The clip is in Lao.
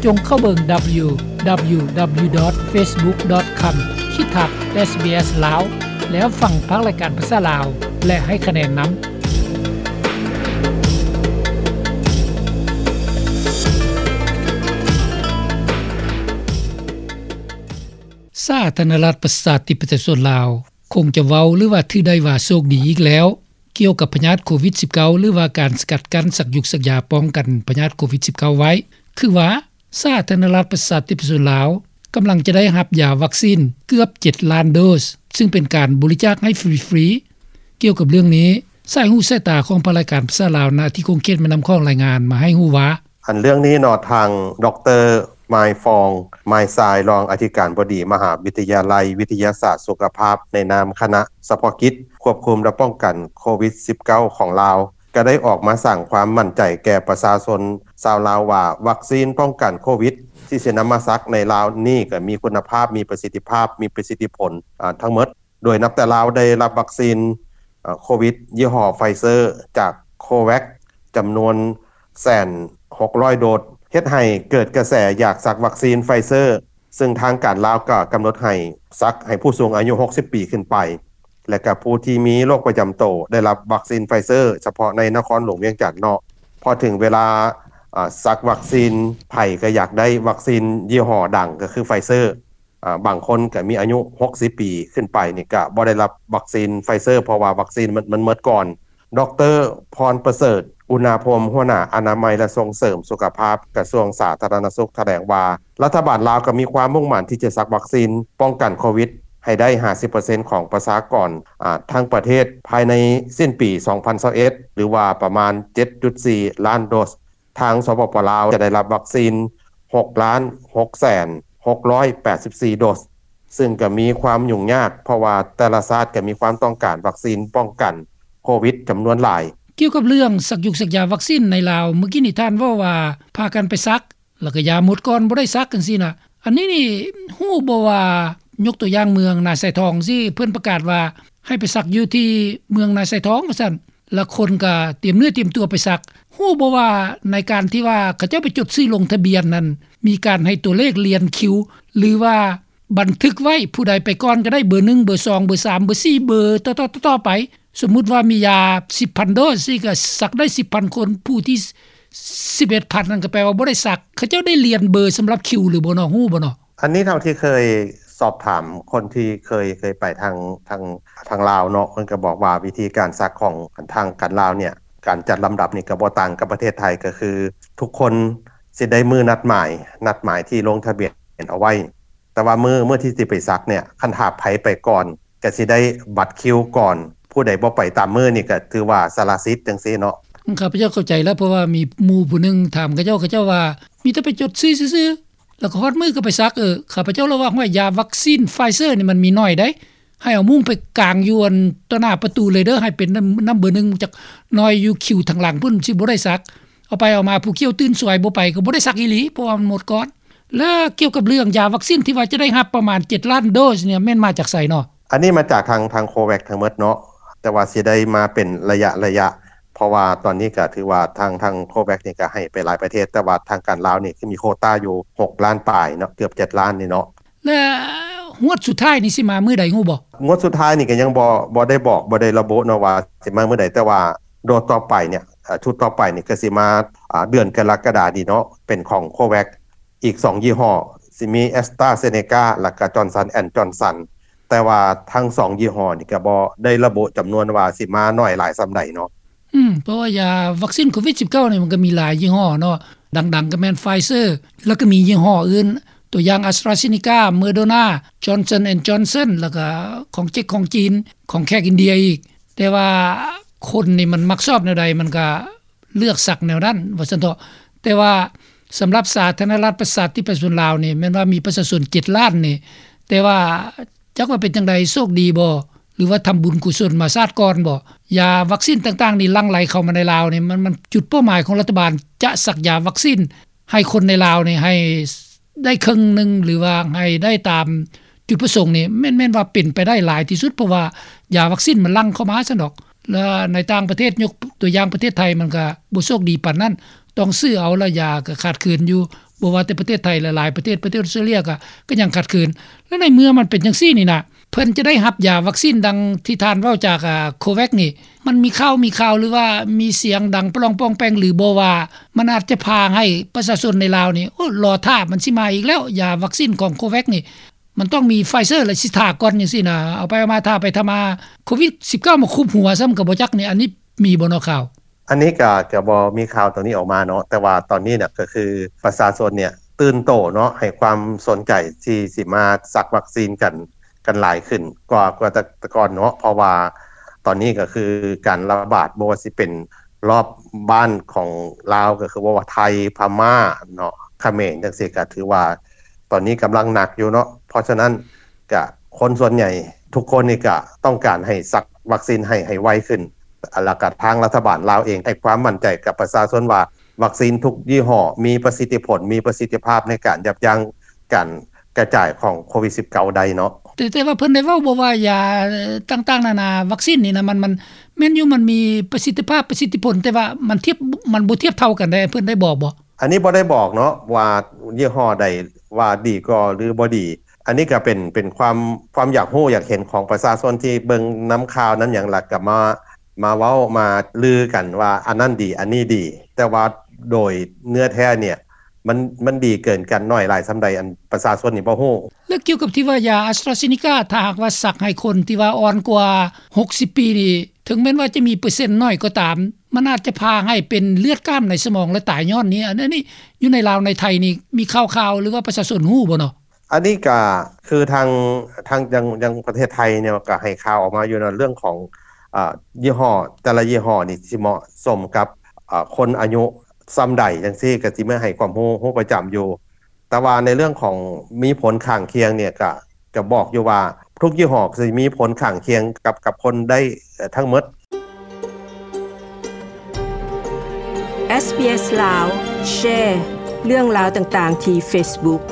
ຈົ່ງເຂົ້າເບິ່ງ ດັບເບິນຢູ ດັບເບິນຢູ ດັບເບິນຢູ ດອດ ເຟສບຸກ ດອດ ຄອມ ຂີດທັບ ເອສບີເອສ ລາວ ແລ້ວຟັງພາກລາຍການພາສາລາວ ແລະ ໃຫ້ຄະແນນນຳ. ສາທາລະນະລັດ ປະຊາທິປະໄຕ ປະຊາຊົນລາວ ຄົງຈະເວົ້າ ຫຼືວ່າຖືໄດ້ວ່າໂຊກດີອີກແລ້ວ ກ່ຽວກັບພະຍາດໂຄວິດສິບເກົ້າ ຫຼືວ່າການສະກັດກັ້ນ ສັກຢຸກສັກຢາປ້ອງກັນພະຍາດໂຄວິດສິບເກົ້າໄວ້ ຄືວ່າ ສາທາລະນະລັດ ປະຊາທິປະໄຕ ປະຊາຊົນລາວ ກຳລັງຈະໄດ້ຮັບຢາວັກຊີນເກືອບເຈັດລ້ານໂດສ ຊຶ່ງເປັນການບໍລິຈາກໃຫ້ຟຣີໆ. ກ່ຽວກັບເລື່ອງນີ້ ສາຍຫູສາຍຕາຂອງພາກລາຍການພາສາລາວ ນະທີ່ຂົງເຂດແມ່ນ້ຳຂອງ ລາຍງານມາໃຫ້ຮູ້ວ່າ ອັນເລື່ອງນີ້ເນາະ ທາງ ດຣ. ມາຍຟອງ ມາຍຊາຍ ຮອງອະທິການບໍດີ ມະຫາວິທະຍາໄລວິທະຍາສາດສຸຂະພາບ ໃນນາມຄະນະສະເພາະກິດຄວບຄຸມ ແລະ ປ້ອງກັນໂຄວິດສິບເກົ້າ ຂອງລາວ ກໍໄດ້ອອກມາສ້າງຄວາມໝັ້ນໃຈແກ່ປະຊາຊົນຊາວລາວວ່າ ວັກຊີນປ້ອງກັນໂຄວິດ ທີ່ຊິນຳມາສັກໃນລາວນີ້ ກໍມີຄຸນນະພາບ, ມີປະສິດທິພາບ, ມີປະສິດທິຜົນ ອາ ທັງໝົດ. ໂດຍນັບແຕ່ລາວໄດ້ຮັບວັກຊີນ ເອີ ໂຄວິດຍີ່ຫໍ້ໄຟເຊີ ຈາກໂຄແວັກ ຈຳນວນແສນຫົກຮ້ອຍໂດສ ເຮັດໃຫ້ເກີດກະແສຢາກສັກວັກຊີນໄຟເຊີ ຊຶ່ງທາງການລາວກໍກຳນົດໃຫ້ສັກໃຫ້ຜູ້ສູງອາຍຸຫົກສິບປີຂຶ້ນໄປ ແລະ ກໍຜູ້ທີ່ມີໂລກປະຈຳໂຕໄດ້ຮັບວັກຊີນໄຟເຊີ ສະເພາະໃນນະຄອນຫຼວງວຽງຈັນເນາະ. ພໍເຖິງເວລາ ອາ ສັກວັກຊີນ ໃຜກໍຢາກໄດ້ວັກຊີນຍີ່ຫໍ້ດັງ ກໍຄືໄຟເຊີ. ອາ ບາງຄົນກໍມີອາຍຸຫົກສິບປີຂຶ້ນໄປນີ້ ກໍບໍ່ໄດ້ຮັບວັກຊີນໄຟເຊີ ເພາະວ່າວັກຊີນມັນ ມັນໝົດກ່ອນ. ດຣ. ພອນປະເສີດ ອຸນນາພົມ ຫົວໜ້າອະນາໄມ ແລະ ສົ່ງເສີມສຸຂະພາບ ກະຊວງສາທາລະນະສຸກ ຖະແຫຼງວ່າ ລັດຖະບານລາວກໍມີຄວາມມຸ່ງໝັ້ນທີ່ຈະສັກວັກຊີນປ້ອງກັນໂຄວິດໃຫ້ໄດ້ຫ້າສິບເປີເຊັນຂອງປະຊາກອນ ອາ ທັງປະເທດ ພາຍໃນສິ້ນປີສອງພັນຊາວເອັດ ຫຼືວ່າປະມານເຈັດຈຸດສີ່ລ້ານໂດສ. ທາງ ສປປ ລາວ ຈະໄດ້ຮັບວັກຊີນຫົກລ້ານຫົກແສນຫົກຮ້ອຍແປດສິບສີ່ໂດສ ຊຶ່ງກໍມີຄວາມຫຍຸ້ງຍາກ ເພາະວ່າແຕ່ລະຊາດກໍມີຄວາມຕ້ອງການວັກຊີນປ້ອງກັນໂຄວິດຈຳນວນຫຼາຍ. ກ່ຽວກັບເລື່ອງສັກຢຸກສັກຢາວັກຊີນໃນລາວ ເມື່ອກີ້ນີ້ທ່ານເວົ້າວ່າພາກັນໄປສັກ ແລ້ວກໍຢາໝົດກ່ອນ ບໍ່ໄດ້ສັກຈັ່ງຊີ້ນະ ອັນນີ້ນີ້ຮູ້ບໍ່ວ່າ ຍົກຕົວຢ່າງເມືອງນາຊາຍທອງຊີ້ ເພິ່ນປະກາດວ່າໃຫ້ໄປສັກຢູ່ທີ່ເມືອງນາຊາຍທອງວ່າຊັ້ນ ລະຄົນກໍຕຽມເນື້ອຕຽມຕົວໄປສັກ. ຮູ້ບໍ່ວ່າໃນການທີ່ວ່າເຂົາເຈົ້າໄປຈົດຊື່ລົງທະບຽນນັ້ນ ມີການໃຫ້ຕົວເລກລຽນຄິວ ຫຼືວ່າບັນທຶກໄວ້ ຜູ້ໃດໄປກ່ອນກໍໄດ້ ເບີໜຶ່ງ ເບີສອງ ເບີສາມ ເບີສີ່ ເບີຕໍ່ໆໆໄປ. ສົມມຸດວ່າມີຢາສິບພັນໂດສ ຊີ້ກໍສັກໄດ້ສິບພັນຄົນ ຜູ້ທີ່ສິບເອັດພັນນັ້ນກໍແປວ່າບໍ່ໄດ້ສັກ. ເຂົາເຈົ້າໄດ້ລຽນເບີສຳລັບຄິວຫຼືບໍ່ເນາະ ຮູ້ບໍ່ເນາະ? ອັນນີ້ເທົ່າທີ່ເຄີຍສອບຖາມຄົນທີ່ເຄີຍ ເຄີຍໄປທາງ ທາງ ທາງລາວເນາະ ເພິ່ນກໍບອກວ່າວິທີການສັກຂອງທາງການລາວເນ່ຍ ການຈັດລຳດັບນີ້ກໍບໍ່ຕ່າງກັບປະເທດໄທ ກໍຄືທຸກຄົນຊິໄດ້ມື້ນັດໝາຍ ນັດໝາຍທີ່ລົງທະບຽນເອົາໄວ້ ແຕ່ວ່າມື້ ມື້ທີ່ຊິໄປສັກເນ່ຍ ຄັນຖ້າໃຜໄປກ່ອນ ກໍຊິໄດ້ບັດຄິວກ່ອນ ຜູ້ໃດບໍ່ໄປຕາມມື້ນີ້ກໍຖືວ່າສະລະສິດຈັ່ງຊີ້ເນາະ. ຂ້າພະເຈົ້າເຂົ້າໃຈແລ້ວ ເພາະວ່າມີໝູ່ຜູ້ໜຶ່ງຖາມເຂົາເຈົ້າ ເຂົາເຈົ້າວ່າມີແຕ່ໄປຈົດຊື່ຊື່ໆ ແລ້ວກໍຮອດມື້ກໍໄປສັກ. ເອີ ຂ້າພະເຈົ້າລະວ່າ ຫ້ວຍ ຢາວັກຊີນໄຟເຊີນີ້ມັນມີໜ້ອຍໃດ໋ ໃຫ້ເອົາມຸ້ງໄປກາງຢູ່ອັນຕໍ່ໜ້າປະຕູເລີຍເດີ ໃຫ້ເປັນນຳ ນຳເບີໜຶ່ງຈັກໜ້ອຍ ຢູ່ຄິວທາງຫຼັງພຸ້ນ ຊິບໍ່ໄດ້ສັກ. ເອົາໄປເອົາມາ ຜູ້ກ່ຽວຕື່ນສວຍບໍ່ໄປ ກໍບໍ່ໄດ້ສັກອີ່ຫຼີ ເພາະວ່າມັນໝົດກ່ອນ. ແລະ ກ່ຽວກັບເລື່ອງຢາວັກຊີນທີ່ວ່າຈະໄດ້ຮັບປະມານເຈັດລ້ານໂດສເນ່ຍ ແມ່ນມາຈາກໃສເນາະ? ອັນນີ້ມາຈາກທາງ ທາງໂຄແວັກທັງໝົດເນາະ ແຕ່ວ່າຊິໄດ້ມາເປັນໄລຍະໆ ເພາະວ່າຕອນນີ້ກໍຖືວ່າທາງ ທາງໂຄແວັກນີ້ກໍໃຫ້ໄປຫຼາຍປະເທດ ແຕ່ວ່າທາງການລາວນີ້ຄືມີໂຄຕ້າຢູ່ຫົກລ້ານປາຍເນາະ ເກືອບເຈັດລ້ານນີ້ເນາະ. ແລະ ຮວດສຸດທ້າຍນີ້ຊິມາມື້ໃດຮູ້ບໍ່? ງວດສຸດທ້າຍນີ້ກໍຍັງບໍ່ ບໍ່ໄດ້ບອກ ບໍ່ໄດ້ລະບຸເນາະວ່າຊິມາມື້ໃດ ແຕ່ວ່າໂດສຕໍ່ໄປເນ່ຍ ເອີ ຊຸດຕໍ່ໄປນີ້ກໍຊິມາ ອາ ເດືອນກໍລະກະດານີ້ເນາະ ເປັນຂອງໂຄແວັກ ອີກສອງຍີ່ຫໍ້ ຊິມີແອັສຕຣາເຊເນກາ ແລ້ວກໍຈອນສັນແອນຈອນສັນ ແຕ່ວ່າທັງສອງຍີ່ຫໍ້ນີ້ກໍບໍ່ໄດ້ລະບຸຈຳນວນວ່າຊິມາໜ້ອຍຫຼາຍສ່ຳໃດເນາະ. ອືມ ເພາະວ່າຢາວັກຊີນໂຄວິດສິບເກົ້ານີ້ ມັນກໍມີຫຼາຍຍີ່ຫໍ້ເນາະ ດັງໆກໍແມ່ນໄຟເຊີ ແລ້ວກໍມີຍີ່ຫໍ້ອື່ນ ຕົວຢ່າງ ອາສຕຣາເຊເນກາ ໂມເດີນາ ຈອນສັນແອນຈອນສັນ ແລ້ວກໍຂອງເຈັກຂອງຈີນ ຂອງແຂກອິນເດຍອີກ. ແຕ່ວ່າຄົນນີ້ມັນມັກຊອບແນວໃດ ມັນກໍເລືອກສັກແນວນັ້ນວ່າຊັ້ນເຖາະ. ແຕ່ວ່າສຳລັບສາທາລະນະລັດ ປະຊາທິປະໄຕ ປະຊາຊົນລາວນີ້ ແມ່ນວ່າມີປະຊາຊົນເຈັດລ້ານນີ້ ແຕ່ວ່າ ຈັກວ່າເປັນຈັ່ງໃດ ໂຊກດີບໍ່ ຫຼືວ່າທຳບຸນກຸສົນມາຊາດກ່ອນບໍ່? ຢາວັກຊີນຕ່າງໆນີ້ຫຼັ່ງໄຫຼເຂົ້າມາໃນລາວນີ້ ມັນ ມັນ ຈຸດເປົ້າໝາຍຂອງລັດຖະບານຈະສັກຢາວັກຊີນໃຫ້ຄົນໃນລາວນີ້ ໃຫ້ໄດ້ເຄິ່ງໜຶ່ງ ຫຼືວ່າໃຫ້ໄດ້ຕາມຈຸດປະສົງນີ້ ແມ່ນ ແມ່ນວ່າເປັນໄປໄດ້ຫຼາຍທີ່ສຸດ ເພາະວ່າຢາວັກຊີນມັນຫຼັ່ງເຂົ້າມາຊັ້ນດອກ. ແລະ ໃນຕ່າງປະເທດ ຍົກຕົວຢ່າງປະເທດໄທ ມັນກະບໍ່ໂຊກດີປານນັ້ນ ຕ້ອງຊື້ເອົາ ແລະ ຢາກະຂາດເຂີນຢູ່ ບໍ່ວ່າແຕ່ປະເທດໄທ ແລະ ຫຼາຍປະເທດ ປະເທດອອສເຕຣເລຍກໍ ກໍຍັງຂາດເຂີນ. ແລະ ໃນເມື່ອມັນເປັນຈັ່ງຊີ້ນີ້ນະ ເພິ່ນຈະໄດ້ຮັບຢາວັກຊີນດັ່ງທີ່ທ່ານເວົ້າຈາກ ອ່າ COVAX ນີ້ ມັນມີຂ່າວ ມີຂ່າວ ຫຼືວ່າມີສຽງດັງປະລອງປອງແປງ ຫຼືບໍ່ວ່າ ມັນອາດຈະພາໃຫ້ປະຊາຊົນໃນລາວນີ້ ໂອ້ ລໍຖ້າ ມັນຊິມາອີກແລ້ວ ຢາວັກຊີນຂອງ COVAX ນີ້ ມັນຕ້ອງມີ Pfizer ແລະ ຊິຖ້າກ່ອນ ຈັ່ງຊີ້ນະ ເອົາໄປເອົາມາ ຖ້າໄປຖ້າມາ ໂຄວິດສິບເກົ້າ ມາຄຸບຫົວຊ້ຳກໍບໍ່ຈັກນີ້ ອັນນີ້ມີບໍ່ເນາະຂ່າວ? ອັນນີ້ກໍ ກໍບໍ່ມີຂ່າວຕົງນີ້ອອກມາເນາະ ແຕ່ວ່າຕອນນີ້ນະ ກໍຄືປະຊາຊົນເນ່ຍຕື່ນໂຕເນາະ ໃຫ້ຄວາມສົນໃຈທີ່ ທີ່ຊິມາສັກວັກຊີນກັນ ກັນຫຼາຍຂຶ້ນກວ່າ ກວ່າແຕ່ ແຕ່ກ່ອນເນາະ ເພາະວ່າຕອນນີ້ກໍຄືການລະບາດ ບໍ່ວ່າຊິເປັນລອບບ້ານຂອງລາວ ກໍຄືບໍ່ວ່າໄທ ພະມ້າເນາະ ຂະເໝນຈັ່ງຊີ້ ກໍຖືວ່າຕອນນີ້ກຳລັງໜັກຢູ່ເນາະ. ເພາະສະນັ້ນ ກະຄົນສ່ວນໃຫຍ່ທຸກຄົນນີ້ກະຕ້ອງການໃຫ້ສັກວັກຊີນໃຫ້ ໃຫ້ໄວຂຶ້ນ ແລ້ວກະທາງລັດຖະບານລາວເອງໃຫ້ຄວາມໝັ້ນໃຈກັບປະຊາຊົນວ່າ ວັກຊີນທຸກຍີ່ຫໍ້ມີປະສິດທິຜົນ ມີປະສິດທິພາບໃນການຢັບຢັ້ງການກະຈາຍຂອງໂຄວິດສິບເກົ້າ ໄດ້ເນາະ. ແຕ່ ແຕ່ວ່າເພິ່ນໄດ້ເວົ້າບໍ່ວ່າຢາຕ່າງໆນານາ ວັກຊີນນີ້ນະ ມັນ ມັນແມ່ນຢູ່ ມັນມີປະສິດທິພາບ ປະສິດທິຜົນ ແຕ່ວ່າມັນທຽບ ມັນບໍ່ທຽບເທົ່າກັນໄດ໋ ເພິ່ນໄດ້ບອກບໍ່? ອັນນີ້ບໍ່ໄດ້ບອກເນາະວ່າຍີ່ຫໍ້ໃດວ່າດີກວ່າ ຫຼື ບໍ່ດີ. ອັນນີ້ກໍເປັນ ເປັນຄວາມ ຄວາມຢາກຮູ້ຢາກເຫັນຂອງປະຊາຊົນທີ່ເບິ່ງນຳຂ່າວນຳຫຍັງ ແລ້ວກໍມາ ມາເວົ້າມາລືກັນວ່າອັນນັ້ນດີ ອັນນີ້ດີ ແຕ່ວ່າໂດຍເນື້ອແທ້ເນ່ຍ ມັນ ມັນດີເກີນກັນໜ້ອຍຫຼາຍສ່ຳໃດ ອັນປະຊາຊົນນີ້ບໍ່ຮູ້. ແລ້ວກ່ຽວກັບທີ່ວ່າຢາ AstraZeneca ຖ້າຫາກວ່າສັກໃຫ້ຄົນທີ່ວ່າອ່ອນກວ່າຫົກສິບປີນີ້ ເຖິງແມ່ນວ່າຈະມີເປີເຊັນໜ້ອຍກໍຕາມ ມັນອາດຈະພາໃຫ້ເປັນເລືອດກ້າມໃນສະໝອງ ແລະ ຕາຍຍ້ອນນີ້. ອັນ ອັນນີ້ຢູ່ໃນລາວໃນໄທນີ້ ມີຂ່າວໆ ຫຼືວ່າປະຊາຊົນຮູ້ບໍ່ເນາະ? ອັນນີ້ກະຄືທາງ ທາງຍັງ ຍັງປະເທດໄທເນາະ ກະໃຫ້ຂ່າວອອກມາຢູ່ເນາະ ເລື່ອງຂອງ ເອີ ຍີ່ຫໍ້ ແຕ່ລະຍີ່ຫໍ້ນີ້ຊິເໝາະສົມກັບ ເອີ ຄົນອາຍຸສ່ຳໃດຈັ່ງຊີ້ ກະຊິມາໃຫ້ຄວາມຮູ້ ຮູ້ປະຈຳຢູ່. ແຕ່ວ່າໃນເລື່ອງຂອງມີຜົນຂ້າງຄຽງເນ່ຍ ກະ ກະບອກຢູ່ວ່າທຸກຍີ່ຫໍ້ຊິມີຜົນຂ້າງຄຽງກັບ ກັບຄົນໄດ້ ເອີ ທັງໝົດ. SBS ລາວ ແຊເລື່ອງລາວຕ່າງໆທີ່ Facebook.